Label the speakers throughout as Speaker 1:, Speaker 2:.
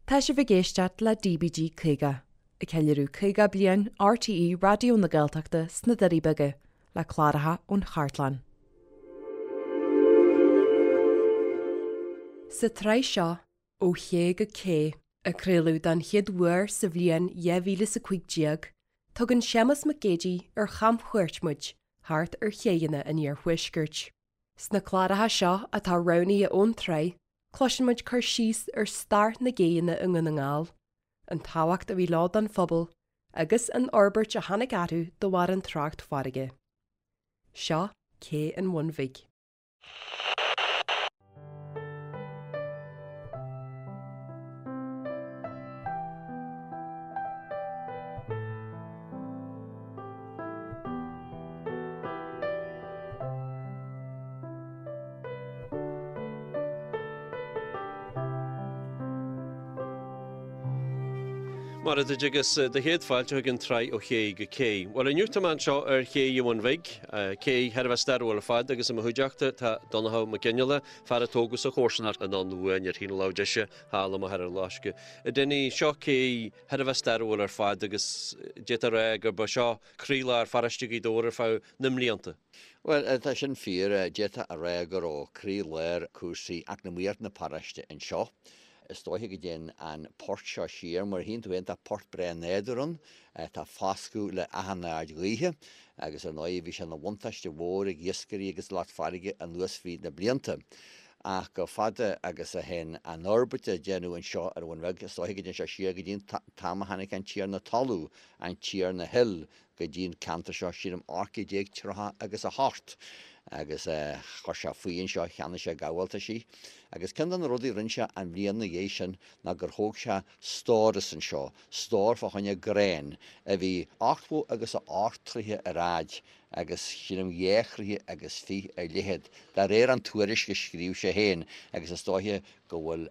Speaker 1: Tá sibh ag éisteacht le DBG 50, ag ceiliúradh 50 bliain RTÉ Raidió na Gaeltachta sna Doirí Beaga, le cláracha ón chartlann. Sa tsraith seo, Ó Ché go Cé, a craoladh don chéad uair sa bhliain 2015, tugann Séamus Mac Géidigh ar chamchuairt muid thart ar chéidheanna an iarthuaiscirt. Sna cláracha seo atá roghnaithe ón tsraith, cloiseann muid cur síos ar stair na gcéidheanna i nDún na nGall, an tábhacht a bhí leo don phobal agus an fhorbairt a tháinig orthu de bharr an trácht farraige. Seo Cé an Bhun Bhig.
Speaker 2: Mar a dúirt agus do chéad fáilte chuig an tsraith ó ché go cé. Bhuel inniu tá mé anseo ar ché an Bhun Bhig, cé thar a bheith stairiúil ar fad agus i mo chuideachta tá Donnchadh Mac Fhionnghaile, fear a tógadh sa chomharsanacht anonn uainn ar thaobh na láimhe deise thall i Machaire Loiscthe. A Dinny, seo cé thar a bheith stairiúil ar fad agus d'fhéadfá a rá gurb é seo croílár pharóiste Ghaoth Dobhair ar feadh na mblianta.
Speaker 3: Bhuel, tá sin fíor. D'fhéadfá a rá go raibh croí-lár cúrsaí eacnamaíocht na paróiste anseo. Is dóiche go dtéann an port seo siar, mar a tchíonn tú féin, tá port breá nádúrtha ann, tá foscadh le achan aird ghaoithe agus ar ndóigh bhí sé ina bhuntáiste mhór ag iascairí agus lucht farraige anuas fríd na blianta. Ach chomh fada agus a théann an fhorbairt a déanadh anseo ar an Bhun Bheag, is dóiche go dtéann sé siar go dtí an t-am a tháinig an Tiarna Talún, an Tiarna Hill, go dtí an ceantar seo, sílim, 1830 agus a hocht, agus chuir sé faoi anseo, cheannaigh sé gabháltaisí. Agus ceann de na rudaí a rinne sé an bhliain ina dhiaidh sin ná gur thóg sé stóras anseo, stór fá choinne gráin, a bhí ochtó agus a hocht troithe ar fhaid agus sílim dhá throighe agus fiche ar leithead, de réir an tuairisc a scríobh sé féin, agus is dóiche go bhfuil,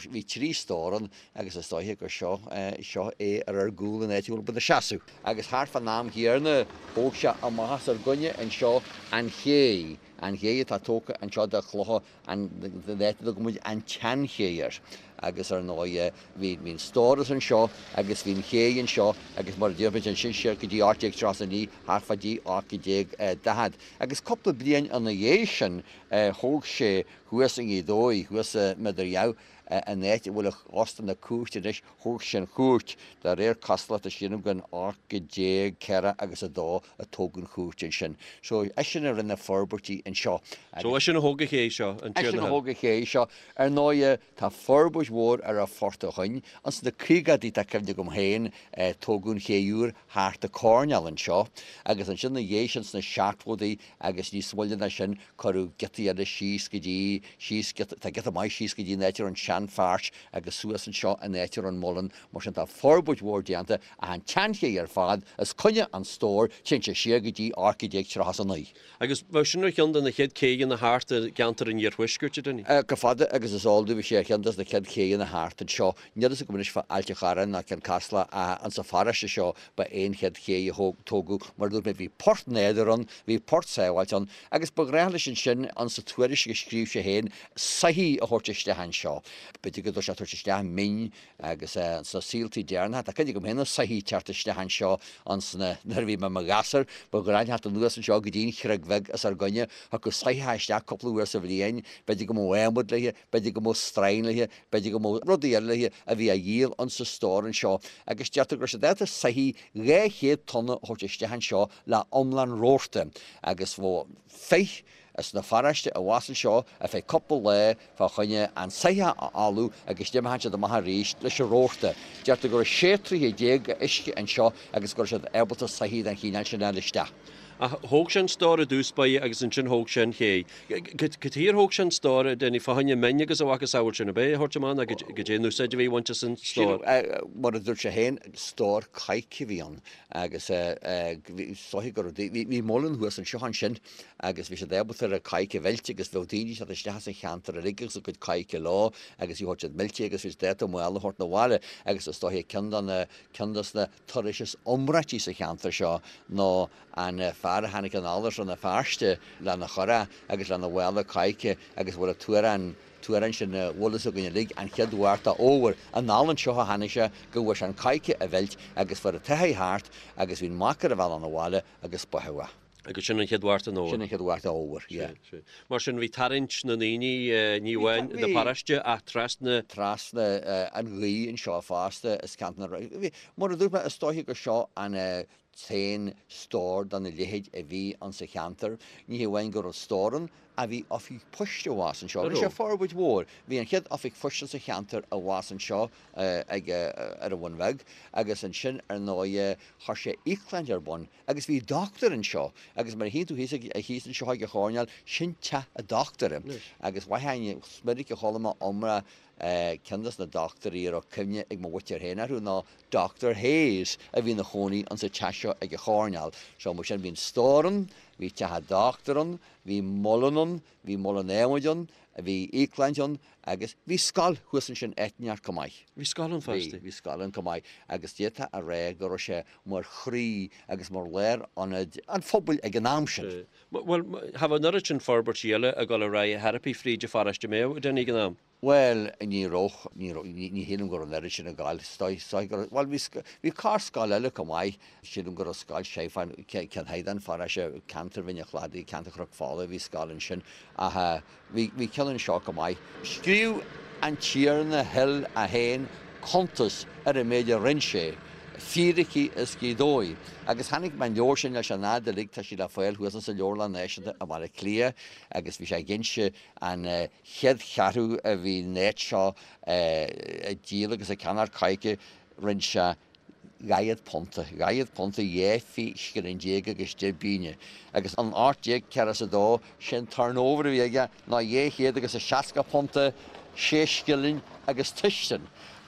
Speaker 3: bhí trí stór ann agus is dóiche gur seo, seo é ar ár gcúl an áit a bhfuil muid ina seasamh. Agus thart fán am chéanna thóg sé amach os ár gcoinne anseo an ché, an ché atá tógtha anseo de chlocha, an áit a dtugann muid an tSeanché air. Agus ar ndóigh bhí, bhí an stóras anseo agus bhí an ché anseo agus mar a deir muid ansin siar go dtí 1839, thart fá dtí 1840. Agus cúpla bliain ina dhiaidh sin thóg sé Thuas i nGaoth Dobhair, thuas i Midirgheamh, an áit a bhfuil Óstán na Cúirte anois, thóg sé an chúirt. De réir cosúlachta, sílim gur in 1840 agus a dó a tógadh an chúirt ansin. So, eisean a rinne forbairtí anseo.
Speaker 2: So, eisean a thóg an ché seo, an
Speaker 3: Tiarna Hill. Eisean a thóg an ché seo. Ar ndóighe, tá forbairt mhór ar an phort ó shoin. Ins na caogaidí, tá cuimhne agam féin, tógadh an ché úr thart an coirnéal anseo agus ansin ina dhiaidh sin sna seachtóidí agus níos moille ná sin, Cuireadh giotaí eile síos go dtí, síos giota, tá giota maith síos go dtí an áit a raibh an seanpháirc agus suas anseo an áit a raibh an muileann, mar sin tá forbairt mhór déanta ach an tseanché ar fad os coinne an stóir, téann sé siar go dtí 1839.
Speaker 2: Agus bheadh sin ar cheann de na chéad céidheanna thart i gceantar an iarthuaiscirt, a Dinny?
Speaker 3: Chomh fada agus is eol domh bhí sé ar cheann des na chéad chéidheanna thart anseo. Níl fhios agam anois fá Ailt a' Chorráin ná Cionn Caslach ach insa pharóiste seo ba é an chéad ché a tógadh. Mar a dúirt mé bhí port nádúrtha ann, bhí port sábháilte ann agus ba ghnách leis ansin, insa tuairisc a scríobh sé féin, soithí a thabhairt isteach anseo. B'fhéidir go raibh sé ag tabhairt isteach min agus sna saoltaí deireanacha, tá cuimhne agam féin ar soithí ag teacht isteach anseo ansna, nuair a bhí mé i mo ghasúr, ba ghnách teacht anuas anseo go dtí an Chreag Bheag os ár gcoinne, thiocfadh soitheach isteach cúpla uair sa bhliain, b'fhéidir go mbeadh adhmad léi, b'fhéidir go mbeadh stroighin léi, b'fhéidir go mbeadh rudaí eile léi a bhí á dhíol insa stór anseo agus deirtear go raibh siad ábalta soithí 200 tonna a thabhairt isteach anseo le iomlán rabharta agus bheadh fir as na pharóiste abhus anseo ar feadh cúpla lá fá choinne an soitheach a fholmhú agus d'imeodh siad amach arís leis an rabharta. Deirtear go raibh 16 troighe d'uisce anseo agus go raibh siad ábalta soithí den chineál sin a fháil isteach.
Speaker 2: Ach thóg sé an stór i dtús báire agus ansin thóg sé an ché. Cad chuige ar thóg sé an stór, a Dinny, fá choinne min agus a mhacasamhail sin, ab é a thabhairt amach nó goidé an úsáid a bhí á bhaint as an stór?
Speaker 3: Mar a dúirt sé féin, stór coirce a bhí ann agus is dóiche go raibh, bhí muileann thuas anseo ansin agus bhí siad ábalta ar an coirce a mheilt agus bheadh daoine ag teacht isteach as an cheantar uilig agus a gcuid coirce leo agus bhí siad millte agus bhí siad ábalta mála a thabhairt 'na bhaile agus is dóiche ceann de na, ceann des na turais is iomráití sa cheantar seo ná an fear a tháinig anall as Rann na Feirste lena churach agus lena mhála coirce agus a bhfuil an t-uarán. t-amhrán sin a bhfuil fhios againn uilig, an chéad Mhárta Fhómhair, anall anseo a tháinig sé go bhfuair sé an coidhce a mheilt agus fuair an tsoitheach thart agus bhí an mac ar a bhealach 'na bhaile agus báitheadh é.
Speaker 2: Agus sin an chéad Mhárta an Fhómhair.
Speaker 3: Sin an chéad Mhárta Fhómhair, yeah.
Speaker 2: Sea, sea. Mar sin bhí tarraingt na ndaoine, ní amháin na paróiste ach trasna.
Speaker 3: Trasna an ghaoth anseo fosta is ceantar na, bhí, mar a dúirt mé, is dóiche gur seo an t-aon stór dona leithéid a bhí ann sa cheantar. Ní hamháin go raibh stór ann, ach bhí oifig poist abhus anseo. Rinne sé forbairt mhór. Bhí an chéad oifig phoist sa cheantar abhus anseo ag, ar an Bhun Bheag agus ansin ar ndóighe chuir sé íocshláinte ar bun agus bhí dochtúir anseo agus mar a chíonn tú thíos ag, thíos anseo ag an choirnéal, sin teach an dochtúra agus mhaith, is minic a chuala mé iomrá Ceann dos na dochtúirí a raibh cuimhne ag mo mhuintir féin orthu ná Doctor Hayes a bhí ina chónaí insa teach seo ag an choirnéal. So mar sin bhí an stór ann, bhí teach an dochtúir ann, bhí muileann ann, bhí muileann adhmaid ann, bhí íocshláinte ann agus bhí scoil thuas ansin áit inteacht chomh maith.
Speaker 2: Bhí scoil ann fosta?
Speaker 3: Bhí, bhí scoil ann chomh maith agus d'fhéadfá a rá go raibh sé mar chroí agus mar lárionad an phobail ag an am sin.
Speaker 2: Bhuel, cha bheadh an oiread sin forbairtí eile ag dul ar aghaidh ar chor ar bith fríd an pharóiste mbeadh, a Danny, ag an am?
Speaker 3: Bhuel, ní raibh, ní raibh, ní shílim go raibh an oiread sin ag gabháil, is dóigh, is dóigh go raibh, bhuel, bhí, bhí corr-scoil eile chomh maith, sílim go raibh scoil sé fán, ceann thiar den pharóiste, ceantar Bhinn an Chladaigh, ceantar Chnoc Fola, bhí scoil ansin ach bhí, bhí ceann anseo chomh maith. Scríobh an Tiarna Hill é féin cuntas ar an méid a rinn sé, fíricí as Gaoth Dobhair. Agus chonaic mé an leabhar sin leis an fhad uilig, tá sí le fáil thuas insa Leabharlann Náisiúnta i mBaile Átha Cliath agus bhí sé ag inse an chéad cheathrú a bhí an áit seo ag díol agus ag ceannacht coirce, rinn sé dhaichead punta, dhaichead punta dhá scilling déag agus deich bpingine. Agus in 1842, sé'n turnover a bhí aige ná dhá chéad agus a seasca punta, sé scilling agus tuisean.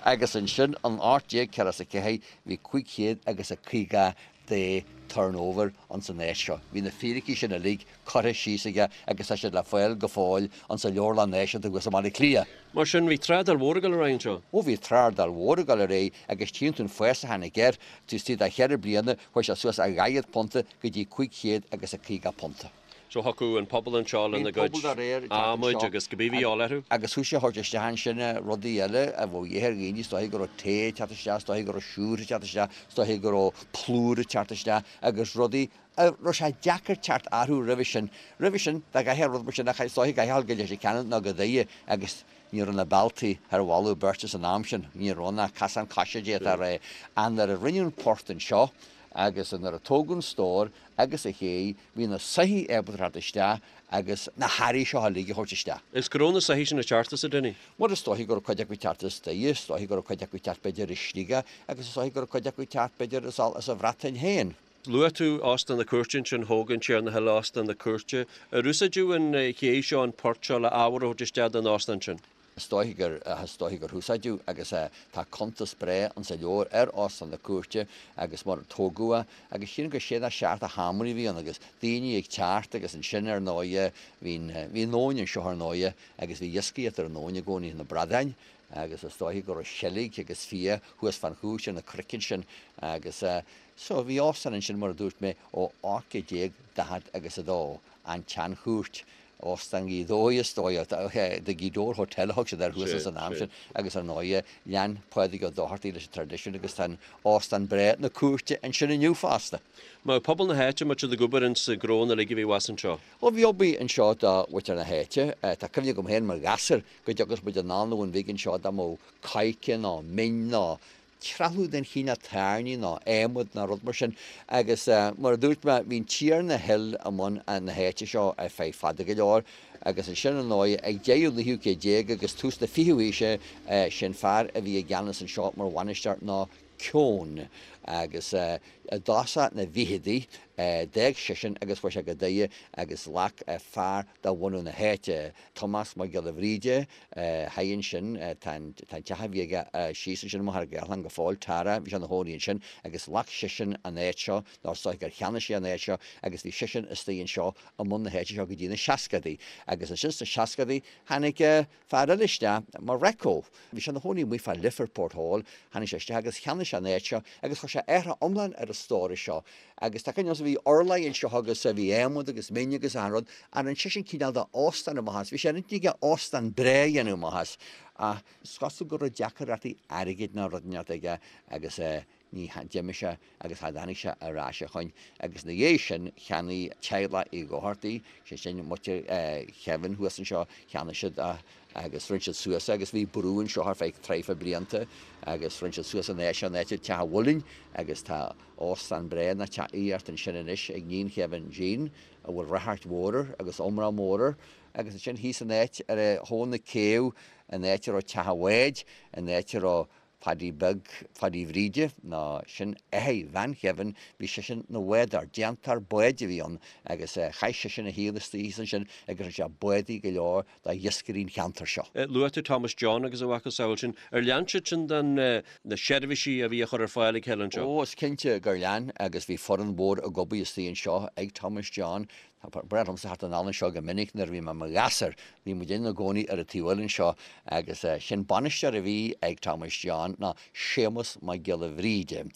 Speaker 3: Agus ansin in 1844 bhí 500 agus a 50 de turnover ins an áit seo. Bhí na fíricí sin uilig curtha síos aige agus tá siad le fáil go fóill ins an Leabharlann Náisiúnta thuas i mBaile Átha Cliath.
Speaker 2: Mar sin, bhí trádáil mhór ag dul ar aghaidh anseo.
Speaker 3: Ó bhí trádáil mhór ag dul ar aghaidh agus tchíonn tú an fás a tháinig air, taobh istigh de cheithre bliana chuaigh sé suas ó dhaichead punta go dtí 500 agus a 50 punta.
Speaker 2: So thiocfadh an pobal anseo lena gcuid adhmaid agus cibé a bhí de dhíobháil orthu.
Speaker 3: Agus thosaigh a thabhairt isteach ansin rudaí eile a bheadh de dhíth ar dhaoine, is dóiche go raibh tae ag teacht isteach, is dóiche go raibh siúcra ag teacht isteach, is dóiche go raibh plúr ag teacht isteach agus rudaí a raibh sé deacair teacht orthu roimhe sin. Roimhe sin, dá gcaithfeá rud mar sin a is dóiche go gcaithfeá dul go Leitir Ceanainn nó go Doire agus ní raibh na bealtaí ar mholadh beirte san am sin, ní raibh ach casán coise d'fhéadfá a rá. Ach nuair a rinneadh an port anseo agus nuair a tógadh an stór agus an ché, bhí na soithí ábalta teacht isteach agus na hearraí seo uilig a thabhairt isteach.
Speaker 2: Is go raibh na soithí sin ag teacht as, a Dinny?
Speaker 3: Bhuel, is dóiche go raibh cuid acu ag teacht as Doire, is dóiche go raibh cuid acu ag teacht b'fhéidir as Sligeach agus is dóiche go raibh cuid acu ag teacht b'fhéidir as an Bhreatain féin.
Speaker 2: Luaigh tú Óstán na Cúirte ansin, thóg an Tiarna Hill Óstán na Cúirte. Ar úsáideadh an ché seo, an port seo, le ábhar a thabhairt isteach don óstán sin?
Speaker 3: Is dóiche gur, is dóiche gur húsáideadh agus tá cuntas breá insa leabhar ar Óstán na Cúirte agus mar a tógadh é agus sílim gur sé nó seacht de sheomraí a bhí ann agus daoine ag teacht agus ansin ar ndóighe bhí an, bhí an abhainn anseo ar ndóighe agus bhí iascaireacht ar an abhainn i gcónaí, na bradáin agus is dóiche go raibh seilg agus fia thuas fán chúis ar na cnoic ansin agus so bhí óstán ansin mar a dúirt mé ó 1840 agus a dó, an tSeanchúirt. Óstán Ghaoth Dobhair is dóigh, The Gweedore Hotel a thug siad air thuas san am sin agus ar ndóighe lean Pádraig Ó Dochartaigh leis an traidisiún agus tá an óstán breá na Cúirte ansin inniu fosta.
Speaker 2: Mar pobal na háite, an mbeadh siad ag obair ins na gnónna uilig a bhí abhus anseo?
Speaker 3: Ó bhí obair anseo do mhuintir na háite. Tá cuimhne agam féin mar ghasúr go dtiocfadh muid anall 'na Bhun Bhig anseo dá mbeadh coirce nó min nó trealamh den chineál tairní nó adhmad nó rud mar sin agus mar a dúirt mé bhí an Tiarna Hill i mbun na háite seo ar feadh fada go leor agus ansin ar ndóigh ag deireadh an naoú céad déag agus tús na fichiú haoise sé'n fear a bhí i gceannas anseo mar bhainisteoir ná Keown agus i dtosach na bhficheadaí d'fhág seisean agus chuaigh sé go Doire agus ghlac fear de bhunadh na háite, Tomás Mac Giolla Bhríde, Thoir ansin, tá an teach a bhí aige síos ansin i Machaire Gathlán go fóill, Tara, bhí sé ina chónaí ansin agus ghlac seisean an áit seo, nó is dóigh gur cheannaigh sé an áit seo agus bhí seisean istigh anseo i mbun na háite seo go dtí na seascadaí. Agus ansin sna seascadaí tháinig fear eile isteach, Mareko, bhí sé ina chónaí amuigh fá Lifford Port Hall, tháinig sé isteach agus cheannaigh sé an áit seo agus chuir sé athrá iomlán ar an stóras seo agus tá cuimhne agamsa. bhí urláir anseo agus bhí adhmad agus min agus achan rud, ach rinne seisean cineál de óstán amach as, bhí sé ar intinn aige óstán breá a dhéanamh amach as, ach is cosúil go raibh deacaireachtaí airgid nó rud inteacht aige agus ní d'imigh sé agus cha dtáinig sé ar ais ó shoin agus ina dhiaidh sin cheannaigh teaghlach Uí Dhochartaigh, sé sin muintir Kevin thuas anseo, cheannaigh siad é agus rinne siad suas é agus bhí brú anseo ar feadh traidhfil blianta agus rinne siad suas an áit seo, an áit Teach an Mhuilinn agus tá óstán breá nó teach aíochta ansin anois ag níon Kevin, Jean, a bhfuil ráchairt mhór air agus iomrá mór air agus ansin thíos an áit ar thóin na céibhe, an áit a raibh teach an bháid, an áit a raibh Padaí Beag Phadaí Bhríde, nó sin athair bhean Kevin, bhí seisean 'na bhádóir, déantóir báid a bhí ann agus chaith seisean a shaol istigh thíos ansin agus rinne sé bádaí go leor do iascairí an cheantair seo.
Speaker 2: Luaigh tú Thomas John agus a mhacasamhail sin. Ar lean siad sin den na seirbhísí a bhí á chur ar fáil ag a chéile anseo?
Speaker 3: Ó, is cinnte gur lean agus bhí foireann mhór ag obair istigh anseo ag Thomas John. Ba bhreá liomsa theacht anall anseo go minic nuair a bhí mé i mo ghasúr. Bhí muid ina gcónaí ar an taobh eile anseo agus sin bainisteoir a bhí ag Thomas John ná Séamus Mac Giolla Bhríde,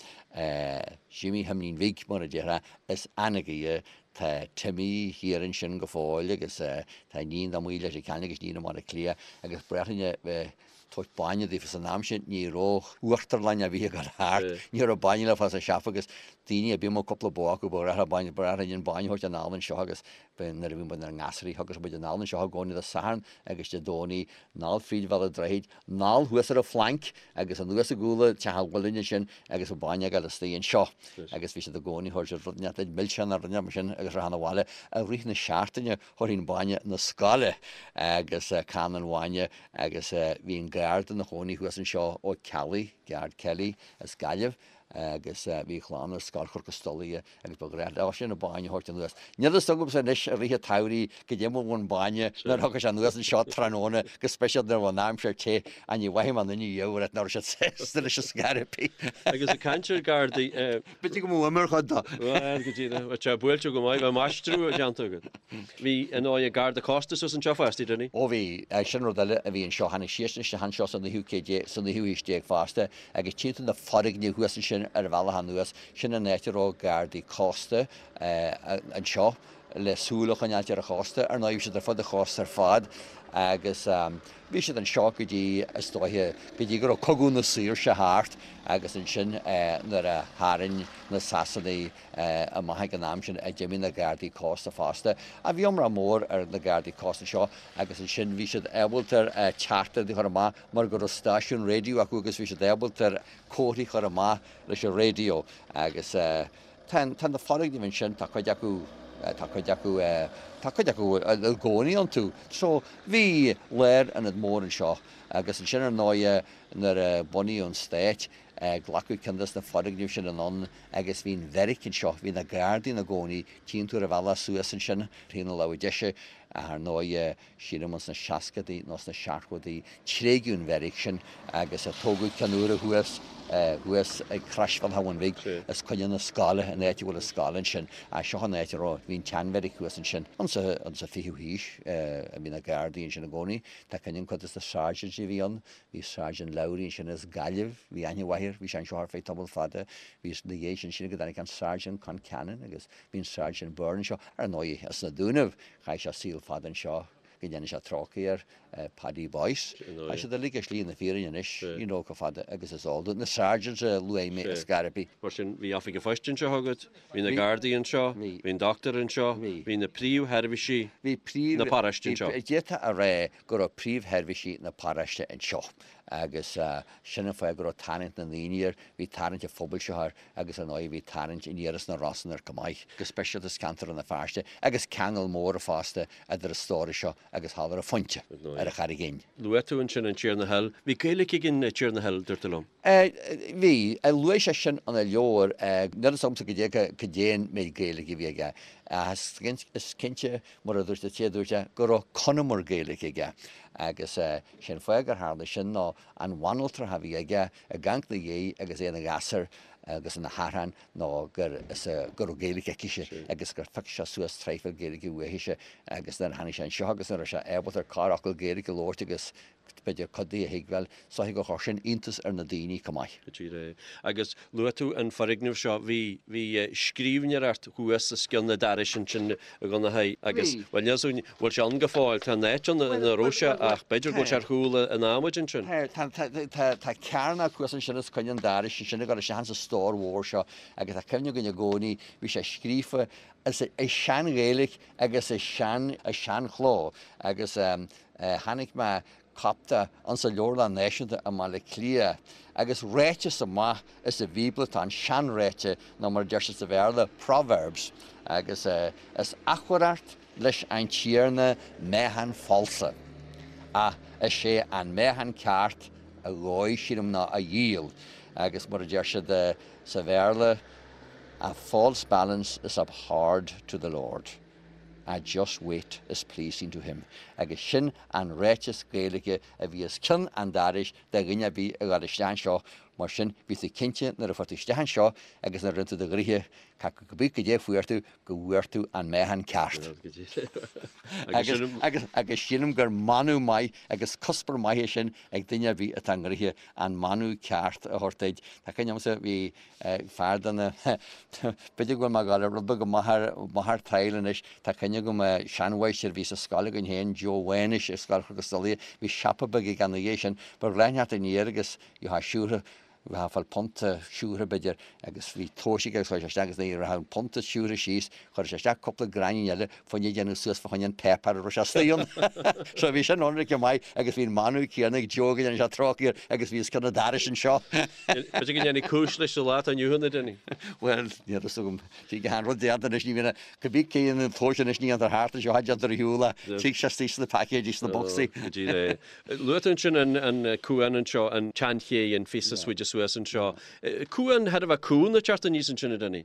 Speaker 3: Jimí Thimín Bhig mar a déarfá, as Anagaire. Tá Timmy thiar ansin go fóill agus tá iníon dá Maoil Leitir Ceanainn agus iníon i mBaile Átha Cliath agus ba bhreá linn a bheith tabhairt bainne daofa san am sin ní raibh uachtarlann ar bith ag dul thart, ní raibh bainne le fáil sa siopa agus daoine ar bith a mbeadh cúpla bó acu ba ghnách leo bainne, ba ghnách linn an bainne a thabhairt anall anseo agus nuair a bhí muid inár ngasúraí thigeadh muid anall anseo i gcónaí Dé Sathairn agus Dé Domhnaigh, anall fríd Bhéal an Droichid, anall thuas ar an Phlanc agus anuas i gcúl teach an mhuilinn ansin agus an bainne ag dul istigh anseo agus bhí siad i gcónaí ag tabhairt rud inteacht milseán nó rud inteacht mar sin agus rachainn abhaile i rith na seachtaine thabharfainn bainne na scoile agus canna an bhainne agus bhí an garda ina chónaí thuas anseo Ó Ceallaigh, Guard Kelly, as Gaillimh agus bhí a chlann ar Scoil Chnoc an Stolaire agus ba ghnách leosan an bainne a thabhairt anuas. Níl a fhios agamsa anois i rith an tsamhraidh goidé mar a bhí an bainne nuair a thigeadh sé anuas anseo tráthnóna go speisialta nuair a bhí an aimsir te ach ní mhaithfidh mé aon duine riamh a rá nach raibh siad sásta leis an scor ar bith.
Speaker 2: Agus ag caint ar Ghardaí.
Speaker 3: B'fhéidir go mbeadh uimhir chuid dó.
Speaker 2: Bhuel, go díreach. Bheadh sé buailte go maith, bheadh maistriú déanta agat. Bhí, ar ndóigh, Garda Cósta suas anseo fosta, Dinny?
Speaker 3: Ó bhí. Sin rud eile a bhí anseo. Tháinig siadsan isteach anseo sa naoú céad déag, sa naoú haois déag fosta agus tchíonn tú na foirgnimh thuas ansin ar an bhealach anuas, sin an áit a raibh Gardaí Cósta anseo le súil a choinneáilt ar an chósta. Ar ndóigh, bhí siad ar fud an chósta ar fad agus bhí siad anseo go dtí, is dóiche, go dtí go raibh Cogadh na Saoirse thart agus ansin nuair a tharraing na Sasanaigh amach ag an am sin a d'imigh na Gardaí Cósta fosta. Ach bhí iomrá mór ar na Gardaí Cósta anseo agus ansin bhí siad ábalta teachtaireachtaí a chur amach mar go raibh stáisiún raidió acu agus bhí siad ábalta comharthaí a chur amach leis an raidió agus Tá, tá na foirgnimh ansin, tá cuid acu, tá cuid acu, tá cuid acu i gcónaí iontu. So, bhí lárionad mór anseo agus ansin ar ndóighe nuair a bunaíodh an Stát, glacadh ceann des na foirgnimh sin anonn agus bhí an bheairic anseo, bhí na Gardaí ina gcónaí, tchíonn tú ar an bhealach suas ansin, taobh na láimhe deise, ach ar ndóighe, sílim ins na seascadaí nó sna seachtóidí, tréigeadh an bheairic sin agus tógadh ceann úr thuas, thuas ag Croisbhealach an Bhun Bhig, os coinne na scoile, an áit a bhfuil an scoil ansin. Ach seo an áit a raibh, bhí an tseanbheairic thuas ansin. Insa, insa fichiú haois a bhí na Gardaí ansin i gcónaí. Tá cuimhne agam cuid des na sergeants a bhí ann, bhí Sergeant Lowry ansin as Gaillimh, bhí aithne mhaith air, bhí sé anseo ar feadh tamall fada. Bhí, ina dhiaidh sin, sílim go dtáinig an Sergeant Concannon agus bhí an Sergeant Byrne anseo. Ar ndóigh, as na Dúnaibh, Chaith sé saol fada anseo go ndéana sé trócaire air, Paddy Boyce. Tá siad uilig ar shlí na fírinne anois, you know, chomh fada agus is eol dúinn. Na sergeants a luaigh mé ar scor ar bith.
Speaker 2: Mar sin, bhí oifig an phoist anseo agat, bhí na Gardaí anseo, bhí an dochtúir anseo, bhí na príomhsheirbhísí na paróiste anseo.
Speaker 3: D'fhéadfá a rá go raibh príomhsheirbhísí na paróiste anseo agus sin an fáth go raibh tarraingt na ndaoine air, bhí tarraingt an phobail seo air agus ar ndóigh bhí tarraingt aniar as na Rosann air chomh maith, go speisialta as ceantar Rann na Feirste, agus ceangal mór fosta idir an stóras seo agus thall ar an Phointe, ar an Charraig Fhinn.
Speaker 2: Luaigh tú ansin an Tiarna Hill. Bhí Gaeilge ag an Tiarna Hill, dúirt tú liom.
Speaker 3: Bhí. Luaigh sé sin ina leabhar. Níl fhios agamsa goidé an méid Gaeilge a bhí aige. Ach is cinnte, mar a dúirt an té a dúirt é, go raibh Conamar Gaeilge aige. Agus sé'n fáth gur tharla sin ná an bhanaltra a bhí aige, ag amharc 'na dhiaidh agus é ina ghasúr agus ina shearrán ná gur is go raibh Gaeilge aicise agus gur phioc sé suas traidhfil Gaeilge uaithise agus nuair a tháinig sé anseo agus nuair a raibh sé ábalta corrfhocal Gaeilge a labhairt agus b'fhéidir cuid de a thuigbheáil, is dóiche gur chuir sin iontas ar na daoine chomh maith.
Speaker 2: Go díreach. Agus luaigh tú an foirgneamh seo, bhí, bhí scríbhneoireacht thuas os cionn an dorais ansin a Dhonnchaidh agus,
Speaker 3: Bhí.
Speaker 2: bhuel níl 's againn, bhfuil sé ann go fóill, tá an áit ann ina raibh sé ach b'fhéidir go bhfuil sé ar chúl an adhmaid ansin.
Speaker 3: Tá, tá, tá, tá, tá cearnóg thuas ansin os coinne an dorais ansin ag dul isteach insa stór mhór seo agus tá cuimhne againn i gcónaí, bhí sé scríofa i sean-Ghaeilge agus i sean, i seanchló agus chonaic mé cóip de insa Leabharlann Náisiúnta i mBaile Átha Cliath agus ráiteas amach as an Bhíobla atá ann, seanráite nó mar a deir siad sa Bhéarla, proverbs, agus is achomhaireacht leis an Tiarna meáchan falsa, ach is é an meáchan ceart a dhóigh, sílim, ná a dhíol, agus mar a deir siad sa Bhéarla, a false balance is abhorred to the Lord. A just weight is pleasing to him. Agus sin an ráiteas Gaeilge a bhí os cionn an dorais do dhuine ar bith a ghabh isteach anseo, mar sin bhí tú cinnte nuair a fuair tú isteach anseo agus nuair a rinne tú do ghnoithe, cibé goidé a fuair tú, go bhfuair tú an meáchan ceart. Agus agus sílim gur manadh maith agus cuspóir maith é sin ag duine ar bith atá i ngnoithe, an manadh ceart a thabhairt duit. Tá cuimhne agamsa, bhí fear de na, b'fhéidir go bhfuil mé ag dul rud beag amach amach ar triail anois, tá cuimhne agam seanmháistir a bhí sa scoil againn féin, Joe Mhánuis i Scoil Chnoc an Stolaire, bhí siopa beag aige ina dhiaidh sin, ba ghnách leat aniar agus gheofá siúcra, bheifeá ag fáil punta siúcra b'fhéidir agus bhí tomhais aige agus chuir sé isteach agus nuair a raibh an punta siúcra síos, chuir sé isteach cúpla gráinnín eile fá choinne déanamh suas fá choinne an páipéar a raibh sé istigh ann. So bhí sin ionraic maith agus bhí an manadh céanna ag Joe go ndéana sé trócaire air agus bhí os cionn an dorais anseo.
Speaker 2: B'fhéidir go ndéanfaidh cúis leis sa lá atá inniu ann, a Dinny.
Speaker 3: Bhuel, níl a fhios agam. Tig an rud déanta anois, ní bhíonn, cibé cé a dhéanann an tomhas anois ní dhéantar thart anseo, déantar ar shiúl é. Tig sé istigh sna paicéidí, sna bocsaí.
Speaker 2: Go díreach é. Luaigh tú ansin an cuan anseo, an tseanchéidh, an phíosa is faide suas anseo. Cuan thar a bheith cúng ag teacht aníos ansin, a Dinny.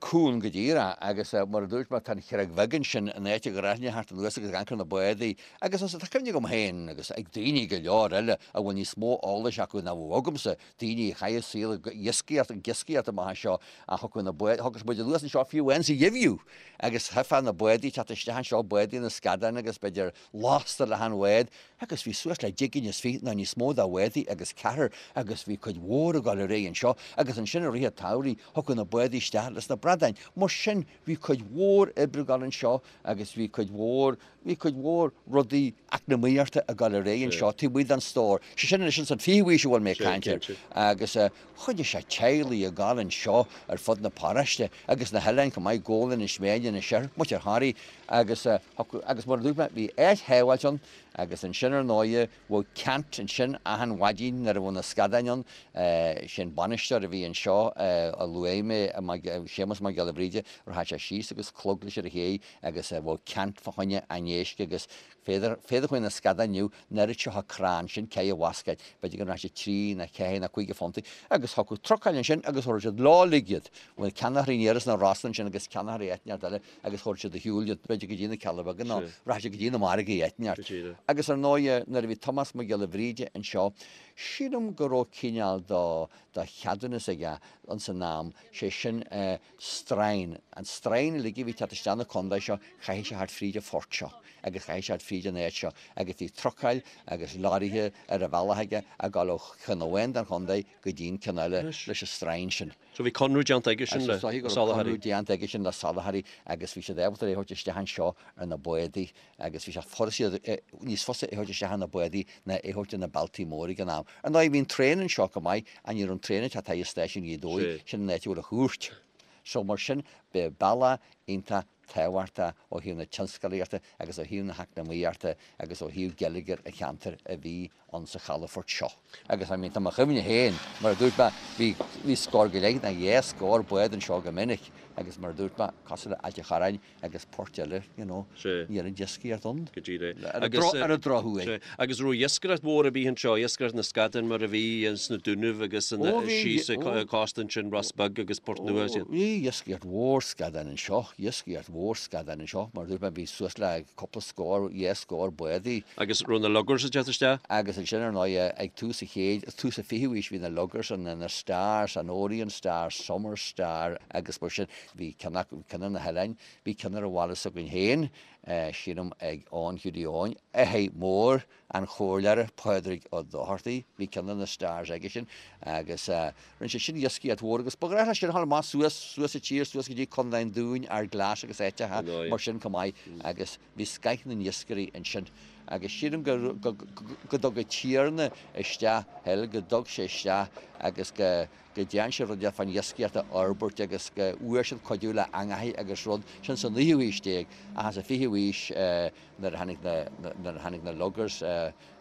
Speaker 3: Cúng go díreach agus mar a dúirt mé tá an Chreag Bheag ansin, an áit a ngnáthaigh thart anuas agus ag ancaire na bádaí agus tá cuimhne agam féin agus ag daoine go leor eile a bhfuil níos mó eolais acu ná bheadh agamsa, daoine a chaith a saol ag iascaireacht, ag iascaireacht amach anseo, ach thiocfadh na báid, thiocfadh muid anuas anseo fiú amháin sa gheimhreadh agus tchífeá na bádaí ag teacht isteach anseo, bádaí na scadán agus b'fhéidir lasta le achan bhád agus bhí suas le deich gcinn is fiche nó níos mó de bhádaí agus ceathrar agus bhí cuid mhór ag dul ar aghaidh anseo agus ansin i rith an tsamhraidh thiocfadh na bádaí isteach leis na bradáin. Mar sin bhí cuid mhór oibre ag dul anseo agus bhí cuid mhór, bhí cuid mhór rudaí eacnamaíochta ag dul ar aghaidh anseo taobh amuigh den stór. Sé sin anois ins an fichiú haois a bhfuil mé ag caint air. Agus choinnigh sé teaghlaigh ag dul anseo ar fud na paróiste agus na hoileáin chomh maith, Gabhla, Inis Meáin, Inis Oirthir, muintir Thoraí agus agus mar a dúirt mé bhí áit shábháilte ann agus ansin ar ndóighe Bheadh ceant ansin achan mhaidin nuair a bheadh na scadáin ann. Sé an bainisteoir a bhí anseo a luaigh mé, Séamus Mac Giolla Bhríde, rachadh sé síos agus clog leis ar an chéidh agus bheadh ceant fá choinne an éisc agus féadar, féadar chuig na scadáin inniu, an oiread seo crann, sin cé a bhascaed, b'fhéidir go raibh sé trí nó ceathair nó cúig phuntaí agus thiocfadh trucail ansin agus thabharfadh siad leo uilig iad. Bhuel, ceannaitheoirí aniar as na Rosann ansin agus ceannaitheoirí áit inteacht eile agus thabharfadh siad ar shiúl iad, b'fhéidir go dtí na Cealla Beaga nó rachadh siad go dtí na margaí áit inteacht. Agus ar ndóighe, nuair a bhí Tomás Mac Giolla Bhríde anseo, sílim go raibh cineál de cheadúnas aige ins an am, sé sin stroighin. An stroighin uilig a bhí ag teacht isteach na contae seo, chaithfeadh sé theacht fríd an phort seo agus chaithfeadh sé theacht fríd an áit seo agus bhí trucail agus lorraithe ar a bhealach aige ag dul ó cheann amháin den chontae go dtí an ceann eile leis an stroighin sin.
Speaker 2: So bhí conradh déanta aige sin le
Speaker 3: Is dóiche go raibh
Speaker 2: soláthraí.
Speaker 3: conradh déanta aige sin le soláthraí agus bhí siad ábalta é a thabhairt isteach anseo ar na bádaí agus bhí sé furast níos fusa é a thabhairt isteach ar na bádaí ná é a thabhairt ar na bealtaí móra ag an am. Ar ndóigh bhí an traein anseo go maith ach ní raibh an traein ag teacht thar stáisiún Ghaoth Dobhair, sin an áit a bhfuil an chúirt. So mar sin b'é bealach iontach tábhachtach ó thaobh na tionscalaíochta agus ó thaobh na heacnamaíochta agus ó thaobh geilleagar an cheantair a bhí ann sa chalafort seo. Agus I mean tá mo chuimhne féin, mar a dúirt mé, bhí, bhí scór go leith nó dhá scór bád anseo go minic agus mar a dúirt mé, cosúil le Ailt an Chorráin agus poirt eile, you know, ní raibh an iascaireacht ann.
Speaker 2: Go díreach.
Speaker 3: Ar an ar an drochuair.
Speaker 2: Sea. Agus raibh iascaireacht mhór ar bith anseo, iascaireacht na scadán mar a bhí sna Dúnaibh agus
Speaker 3: Ó bhí,
Speaker 2: síos
Speaker 3: ó.
Speaker 2: an cósta ansin, Ros Beag agus Port Nua is iad.
Speaker 3: Ó bhí iascaireacht mhór scadán anseo, iascaireacht mhór scadán anseo, mar a dúirt mé, bhí suas le cúpla scór, dhá scór bádaí.
Speaker 2: Agus raibh na luggers ag teacht isteach?
Speaker 3: Agus ansin ar ndóigh ag tús an chéid, tús an fichiú haois bhí na luggers ann, na Stars, an Orient Star, Summer Star agus mar sin. Bhí ceann acu, ceann ar na hoileáin, bhí ceann ar an bhaile s'againn féin, sílim ag Eoin Hiúdaí Eoin, athair mór an chomhairleora Pádraig Ó Dochartaigh, bhí ceann de na Stars aige sin agus rinne sé sin iascaireacht mhór agus ba ghnách leis sin a dhul amach suas, suas sa tír, suas go dtí Contae an Dúin, Ard Glas agus áiteacha mar sin chomh maith agus bhí scoith na n-iascairí ansin agus sílim go, go, go dtug an tiarna isteach thoil, go dtug sé isteach agus go, go dtearn sé rud fán iascaireacht a fhorbairt agus go bhfuair siad cuidiú le eangachaí agus rud, sin sa naoú haois déag ach sa fichiú haois nuair a tháinig na, nuair a tháinig na luggers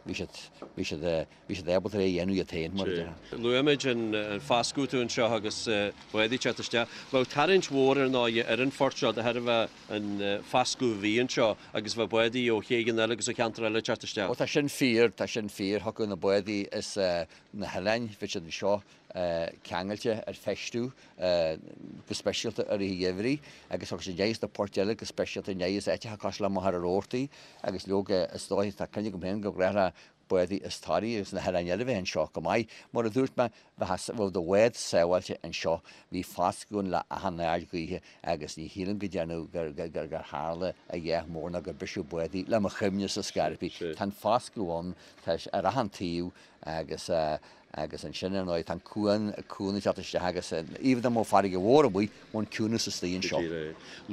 Speaker 3: bhí siad, bhí siad, bhí siad ábalta é a dhéanamh iad féin mar a déarfá.
Speaker 2: Luaigh muid an fascadh tú anseo agus bádaí ag teacht isteach. Bheadh tarraingt mhór ar ndóigh ar an phort seo de thairbhe an fascadh a bhí anseo agus bheadh bádaí ó chéidheanna eile agus ó cheantair eile ag teacht isteach.
Speaker 3: Ó tá sin fíor, tá sin fíor. Thiocfadh na bádaí as na hoileáin, bhí siad anseo ceangailte ar feistiú go speisialta i rith an gheimhridh agus thiocfadh siad aníos na poirt eile go speisialta aníos áiteacha cosúil le Machaire Rabhartaigh agus leoga is dóigh tá cuimhne agam féin go gnách le bádaí as Toraigh agus na hoileáin eile bheith anseo go maith. Mar a dúirt mé, bheadh do bhád sábháilte anseo, bhí fascadh ann le achan aird ghaoithe agus ní shílim go dtearnadh gur tharla a dhath mór ná gur briseadh bádaí le mo chuimhne-sa ar scor ar bith. Tá an fascadh ann, tá sé ar achan taobh agus agus ansin ar ndóigh tá an cuan, cuan ag teacht isteach agus even dá mbeadh farraige mhór amuigh, bheadh an ciúnas istigh anseo.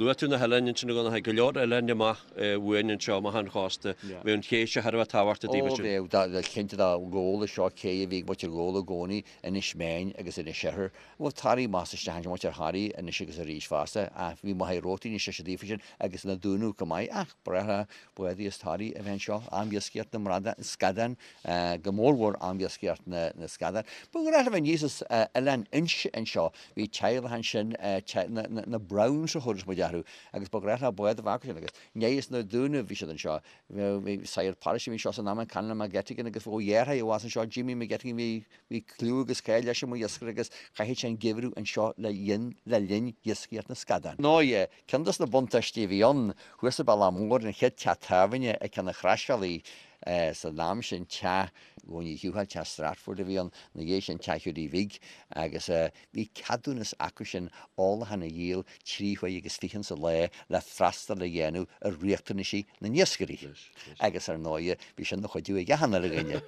Speaker 2: Luaigh tú na hoileáin ansin a Dhonncha, go leor oileáin amach uainn anseo, amach an chósta. Bheadh an ché seo thar a bheith tábhachtach daoibh
Speaker 3: Ó ansin. bheadh, cinnte dá Ghabhla seo cé a bhí ag muintir Ghabhla i gcónaí, Inis Meáin agus Inis Oirthir. Bheadh Toraigh amach is isteach ansin, muintir Thoraí anois agus arís fosta ach bhí Machaire Rabhartaigh níos deise daofa sin agus na Dúnaibh chomh maith ach ba ghnách le bádaí as Toraigh a bheith anseo, am iascaireacht na mbradán, scadán. go mórmhór am iascaireacht na scadán. Ba ghnách leo a bheith aníos as Oileán Inse anseo, bhí teaghlach ansin, na Browns a thabharfadh muid orthu, agus ba ghnách leo bád a bheith acu sin agus aníos na Dúnaibh bhí siad anseo. Bhí sagart paróiste a bhí anseo san am, an Canon McGettigan agus bheadh a dheartháir abhus anseo, Jimmy McGettigan, bhí bhí cliú agus cáil leis mar iascaire agus chaitheadh sé an geimhreadh anseo le linn le linn iascaireacht na scadán. Ndóigh, ceann dos na buntáistí a bhí ann, thuas sa Bealach Mór, an chéad teach tábhairne ag ceann an chrosbhealaigh, San am sin teach Dhónaí Shiútháil, teach Stratford a bhí ann, ina dhiaidh sin teach Hiúdaí Bhig agus bhí ceadúnas acu sin ólachán a dhíol 3 huaire agus fichead sa lá le freastal a dhéanamh ar riachtanaisí na n-iascairí. Agus ar ndóighe bhí sin ina chuidiú ag achan uile dhuine.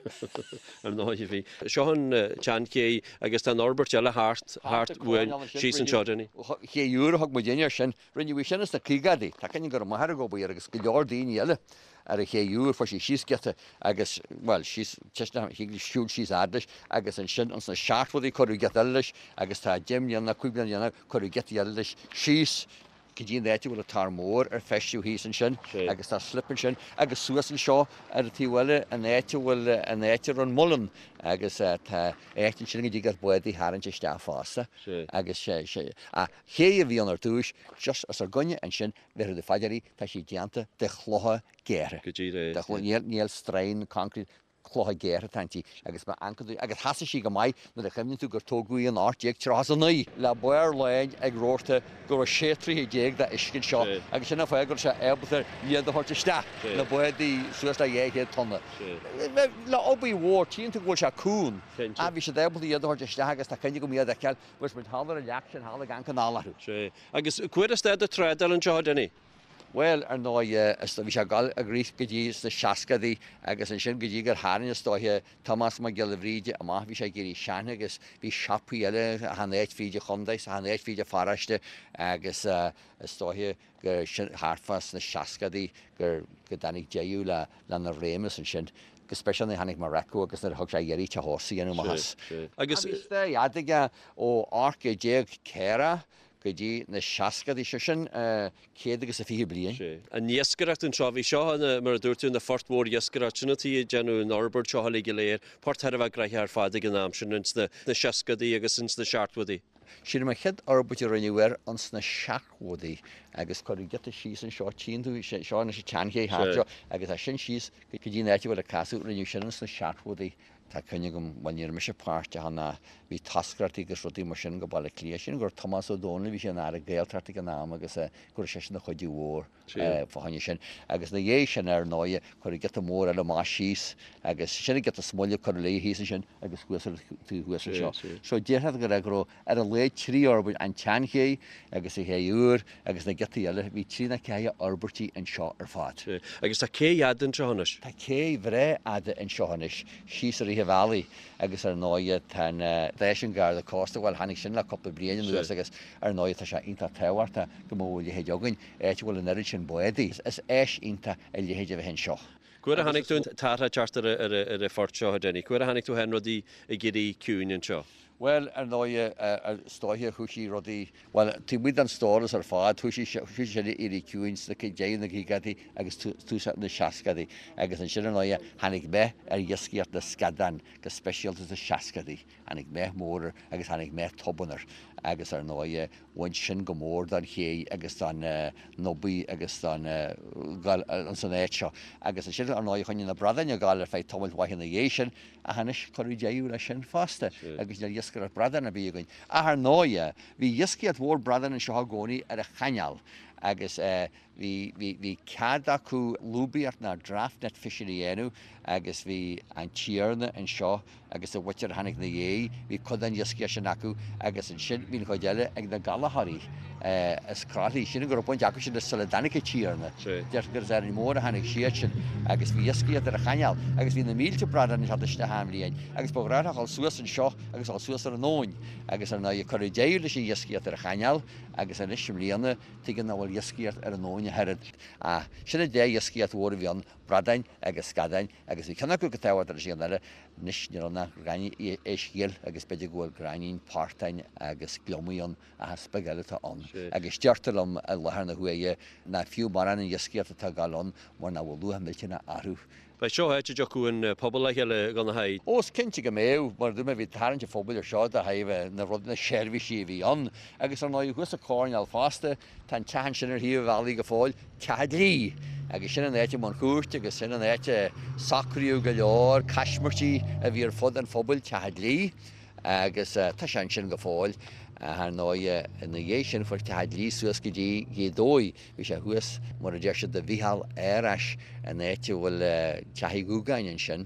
Speaker 2: Ar ndóighe bhí. Seo an tseanchéidh agus tá an fhorbairt eile thart, thart uainn síos anseo, Dinny.
Speaker 3: Chéad uair a thug muid air sin, rinneadh í sin ins na caogaidí. Tá cuimhne go raibh m'athair ag obair agus go leor daoine eile. Ar an ché úr, fuair sí síos giota agus, bhuel, síos, thig leis siúl síos fhad leis agus ansin ins na seachtóidí cuireadh giota eile leis agus tá 10 mbliana, 5 bliana dhéanach cuireadh giota eile leis síos go dtí an áit a bhfuil an tor mór ar feistiú thíos ansin agus tá slip ansin agus suas anseo ar an taobh eile an áit a bhfuil, an áit a raibh an muileann agus tá áit ansin go dtig leat bád a tharraingt isteach fosta agus sé, sé, ach ché a bhí ann ar dtúis just os ár gcoinne ansin Bhéarfaidh tú fá dear í, tá sí déanta de chlocha géartha.
Speaker 2: Go díreach.
Speaker 3: De chlocha, níl, níl stroighin, concrete, clocha géartha atá inti agus má amharcann tú, agus sheasaigh sí go maith nuair a chuimhníonn tú gur tógadh í in 1839, le barr láin ag rabharta go raibh 16 troigh de uisce anseo agus sin an fáth go raibh sé ábalta iad a thabhairt isteach, na bádaí suas le 200 tonna. Le obair mhór, tchíonn tú go bhfuil sé cúng, ach bhí siad ábalta iad a thabhairt isteach agus tá cuimhne agam iad a fheiceáil, bhí muid thall ar an leac sin thall ag amharc anall
Speaker 2: orthu. Agus cá huair a stad an trádáil anseo, a Dinny?
Speaker 3: Bhuel, ar ndóigh, is bhí sé ag dul ag rith go dtí sna seascadaí agus ansin go dtí gur tharraing, is dóiche, Tomás Mac Giolla Bhríde amach, bhí sé ag éirí sean agus bhí siopaí eile achan áit fríd an chontae, is achan áit fríd an pharóiste agus is dóiche gur sin thart fá sna seascadaí gur, go dtáinig deireadh le, lena réimeas ansin. Go speisialta nuair a tháinig Marreco agus nuair a thug sé iarraidh teach ósta a dhéanamh amach as.
Speaker 2: Agus.
Speaker 3: Bhí stair fhada aige ó 1840 go dtí na seascadaí, sé sin 120 bliain.
Speaker 2: Sea. An iascaireacht anseo, bhí seo ina, mar a dúirt tú, ina phort mhór iascaireachta. Sin an tuige a déanadh an fhorbairt seo uilig go léir. Port thar a bheith gnoitheach ar fad ag an am sin, ins na seascadaí agus ins na seachtóidí.
Speaker 3: Sílim an chéad fhorbairt a rinneadh air ins na seachtóidí agus cuireadh giota síos anseo, tchíonn tú, seo anois an tseanché thart seo agus as sin síos go dtí an áit a bhfuil an casadh, rinneadh sin ins na seachtóidí. Tá cuimhne agam, bhuel ní raibh mise páirteach ann ach bhí toscaireachtaí agus rudaí mar sin go Baile Átha Cliath. Sílim go raibh Tomás Ó Domhnaill, bhí sé ina Aire Gaeltachta ag an am agus go raibh seisean ina chuidiú mhór fá choinne sin. Agus ina dhiaidh sin ar ndóighe cuireadh giota mór eile amach síos agus sin an giota is moille a cuireadh léi thíos ansin agus thuas ar an taobh thuas anseo. So déarfá go raibh go raibh ar a laghad 3 fhorbairt, an tseanchéidh agus an chéidh úr agus na giotaí eile, bhí trí nó ceathair fhorbairtí anseo ar fad.
Speaker 2: Agus tá cé fhada anseo anois?
Speaker 3: Tá cé bhreá fhada anseo anois, síos i rith an bhealaigh agus ar ndóighe tá an stáisiún Garda Cósta, bhuel tháinig sin le cúpla bliain anuas agus ar ndóighe tá sé iontach tábhachtach go mbeadh a leithéid againn, áit a bhfuil an oiread sin bádaí. Is áis iontach a leithéid a bheith anseo.
Speaker 2: Cá huair a chonaic tú an t-athrú ag teacht ar an phort seo, a Denny? Cá huair a chonaic tú féin rudaí ag éirí ciúin anseo?
Speaker 3: Bhuel, ar ndóighe, is dóiche, thoisigh rudaí, bhuel, taobh amuigh den stóras ar fad, thoisigh sé ag éirí ciúin sna deireadh na gcaogaidí agus tús na seascadaí. Agus ansin, ar ndóighe, tháinig meath ar iascaireacht na scadán, go speisialta sna seascadaí. Tháinig meath mór air agus tháinig meath tobann air. Agus ar ndóighe, bhain sin go mór don ché agus don obair agus don ghoil ins an áit seo. Agus ansin, ar ndóighe, choinnigh na bradáin ag gabháil ar feadh tamaill mhaith ina dhiaidh sin, Ach anois cuireadh deireadh leis sin fosta agus níl iascaireacht bradán ar bith againn. Ach ar ndóighe, bhí iascaireacht mhór bradán anseo i gcónaí ar an chainéal agus bhí, bhí, bhí cead acu lúbaíocht ná draft net fishing a dhéanamh agus bhí an tiarna anseo agus a mhuintir a tháinig ina dhiaidh, bhí cuid den iascaireacht sin acu agus ansin bhí an chuid eile ag na Gallchóirí as Croithlí. Sílim go raibh baint acu sin leis sula dtáinig an tiarna. Deirtear gur as Árainn Mhór a tháinig siad sin agus bhí iascaireacht ar an chainéal agus bhí na mílte bradán ag teacht isteach achan bhliain agus ba ghnách leo a dhul suas anseo agus a dhul suas ar an abhainn agus ar ndóigh cuireadh deireadh leis an iascaireacht ar an chainéal agus anois i mbliana tuigim nach bhfuil iascaireacht ar an abhainn ach oiread. Ach sin an dá iascaireacht mhór a bhí ann, bradáin agus scadáin agus bhí ceann acu go tábhachtach leis an gceann eile. Anois níl ann ach gráinnín éisc ghil agus b'fhéidir go bhfuil gráinnín portáin agus gliomaigh ann ach is beag eile atá ann. Agus deirtear liom i láthair na huaire nach fiú mórán an iascaireacht atá ag gabháil ann mar nach bhfuil luach millteanach orthu.
Speaker 2: Beidh seo áit a dtiocfadh an pobal le chéile, a Dhonncha.
Speaker 3: Ó, is cinnte go mbeadh. Mar a dúirt mé, bhí tarraingt an phobail ar seo de thaobh na rudaí, na seirbhísí a bhí ann. Agus ar ndóigh, thuas sa choirnéal fosta, tá an teach ansin ar thaobh an bhealaigh go fóill, Teach an Dlí. Agus sin an áit a mbeadh an chúirt agus sin an áit a socraíodh go leor caismirtí a bhí ar fud an phobail, Teach an Dlí. Agus tá sé ansin go fóill. Ach ar ndóigh, ina dhiaidh sin fuair Teach an Dlí suas go dtí Gaoth Dobhair. Bhí sé thuas, mar a deir siad, do Mhícheál Árais, an áit a bhfuil Teach Uí Dhúgáin ansin,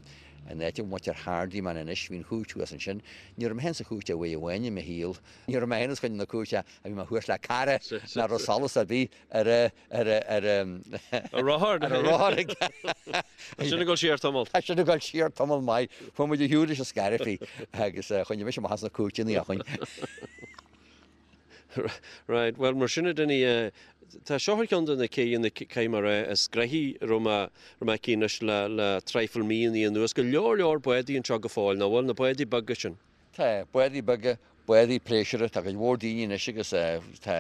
Speaker 3: an áit a bhfuil muintir Hardiman anois, bhí an chúirt thuas ansin. Ní raibh mé féin sa chúirt ach uair amháin i mo shaol. Ní raibh mé féin os coinne na cúirte ach bhí mé thuas le cara nach raibh solas ar bith ar a, ar a, ar a,
Speaker 2: Ar rothar.
Speaker 3: ar a rothar aige.
Speaker 2: Tá sin ag dul siar tamall.
Speaker 3: Tá sin ag dul siar tamall maith. Chuaigh muid ar shiúl leis an scairbhí agus choinnigh mise amach as na cúirteanna ó shin.
Speaker 2: Right, bhuel mar sin a Dinny, tá seo ar cheann de na céidheanna, caithfidh mé a rá, is gnoithí a raibh mé, raibh mé aici anois le, le traidhfil míonna anuas. Go leor leor bádaí anseo go fóill, nach bhfuil, na bádaí beaga sin?
Speaker 3: Tá, bádaí beaga, bádaí pléisiúrtha, tá cuid mhór daoine anois agus tá,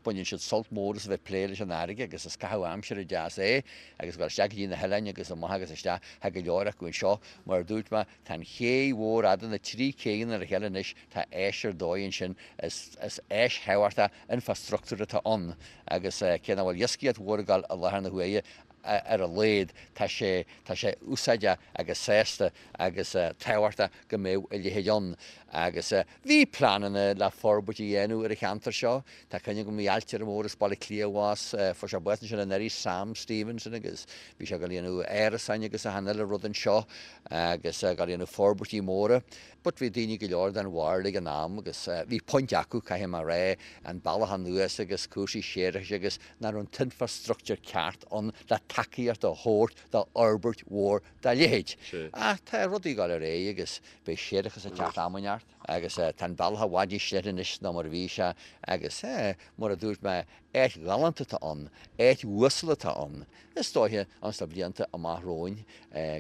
Speaker 3: baineann siad sult mór as a bheith ag plé leis an fharraige agus is caitheamh aimsire deas é agus dul isteach go dtí na hoileáin agus amach agus isteach, tá go leor acu anseo. Mar a dúirt mé, tá an ché mhór fhada, na trí céidheanna le chéile anois, tá áis ar dóigh ansin, is áis thábhachtach infreastruchtúir atá ann agus cé nach bhfuil iascaireacht mhór ag dul i láthair na huaire, ar a laghad, tá sé, tá sé úsáideach agus sásta agus tábhachtach go mbeadh a leithéid ann. Agus bhí pleananna le forbairt a dhéanamh ar an cheantar seo. Tá cuimhne agam, bhí ailtire mór as Baile Átha Cliath abhus, fuair sé bás ansin anuraidh, Sam Stevenson, agus bhí sé ag dul a dhéanamh árasáin agus achan uile rud anseo agus ag dul a dhéanamh forbairtí móra. But bhí daoine go leor den bharúil ag an am agus bhí point acu, caithfidh mé a rá, an bealach anuas agus cúrsaí séarachais agus nach raibh an t-infreastruchtúr ceart ann le tacaíocht a thabhairt do fhorbairt mhór dá leithéid. Ach tá rudaí ag dul ar aghaidh agus beidh séarachas ag teacht am inteacht agus tá an bealach i bhfad níos leithne anois ná mar a bhí sé agus, mar a dúirt mé, áit ghalánta atá ann, áit uasal atá ann. Is dóiche, ins na blianta amach romhainn,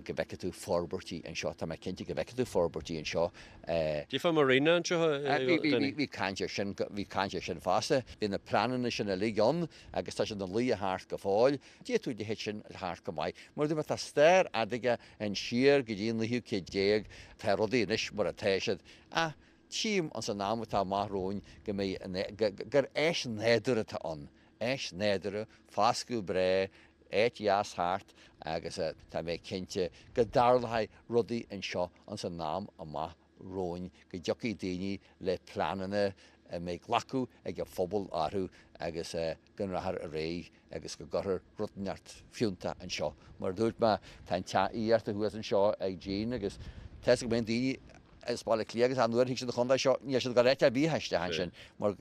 Speaker 3: go bhfeicfidh tú forbairtí anseo, tá mé cinnte go bhfeicfidh tú forbairtí anseo.
Speaker 2: Cad fá marina anseo, a Danny?
Speaker 3: Bhí caint air sin, bhí caint air sin fosta. Bhí na pleananna sin uilig ann agus tá siad ina luí thart go fóill. D'fhéadfadh a leithéid sin a theacht go maith. Mar a dúirt mé, tá stair fhada aige ansiar go dtí an naoú céad déag, tá rudaí anois mar atá siad, ach tchím ins an am atá amach romhainn go mbeidh, gur áis nádúrtha atá ann, áis nádúrtha, foscadh breá. Áit dheas thart agus tá mé cinnte go dtarlóidh rudaí anseo ins an am amach romhainn, go dtiocfaidh daoine le pleananna a mbeidh glacadh ag an phobal orthu agus go rachfar ar aghaidh agus go gcuirfear rud inteacht fiúntach anseo. Mar a dúirt mé, tá an teach aíochta thuas anseo ag Jean agus tá 'fhios agam go mbíonn daoine as Baile Átha Cliath agus nuair a thig siad an chontae seo, níl siad ag dul áit ar bith ach isteach ansin mar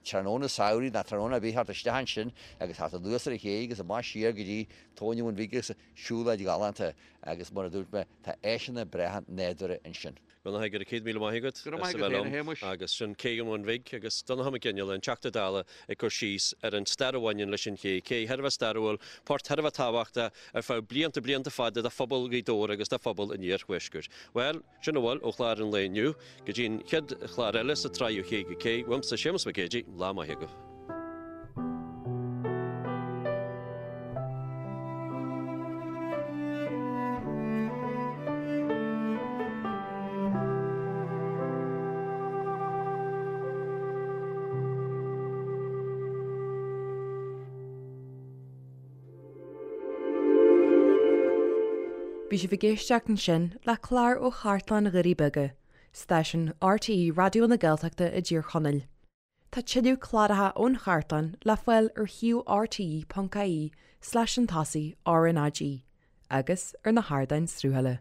Speaker 3: tráthnóna samhraidh ná tráthnóna ar bith thart isteach ansin agus thart anuas ar an ché agus amach siar go dtí Tóin an Bhun Bhig agus siúlóid ghalánta agus mar a dúirt mé, tá áiseanna breátha nádúrtha ansin.
Speaker 2: Go raibh 100,000 maith agat
Speaker 3: Go raibh maith agat féin, a Shéamuis.
Speaker 2: Agus sin Cé an Bhun Bhig agus Donnchadh Mac Fhionnghaile, an Teachta Dála, ag cur síos ar an stair a bhaineann leis an ché. Cé thar a bheith stairiúil, port thar a bheith tábhachtach ar feadh blianta, blianta fada do phobal Ghaoth Dobhair agus do phobal an iarthuaiscirt. Bhuel, sin a bhfuil ó chlár an lae inniu. Go dtí an chéad chlár eile sa tsraith Ó Ché go Cé, uaimse Séamus Mac Géidigh, lá maith agaibh.
Speaker 1: Bhí sibh ag éisteacht ansin le clár ó Chartlann Dhoirí Beaga, stáisiún RTÉ Raidió na Gaeltachta i dTír Chonaill. Tá tuilleadh cláracha ón chartlann le fáil ar shuíomh rte.ie slash an tosaigh RnaG agus ar na hardáin sruthaithe.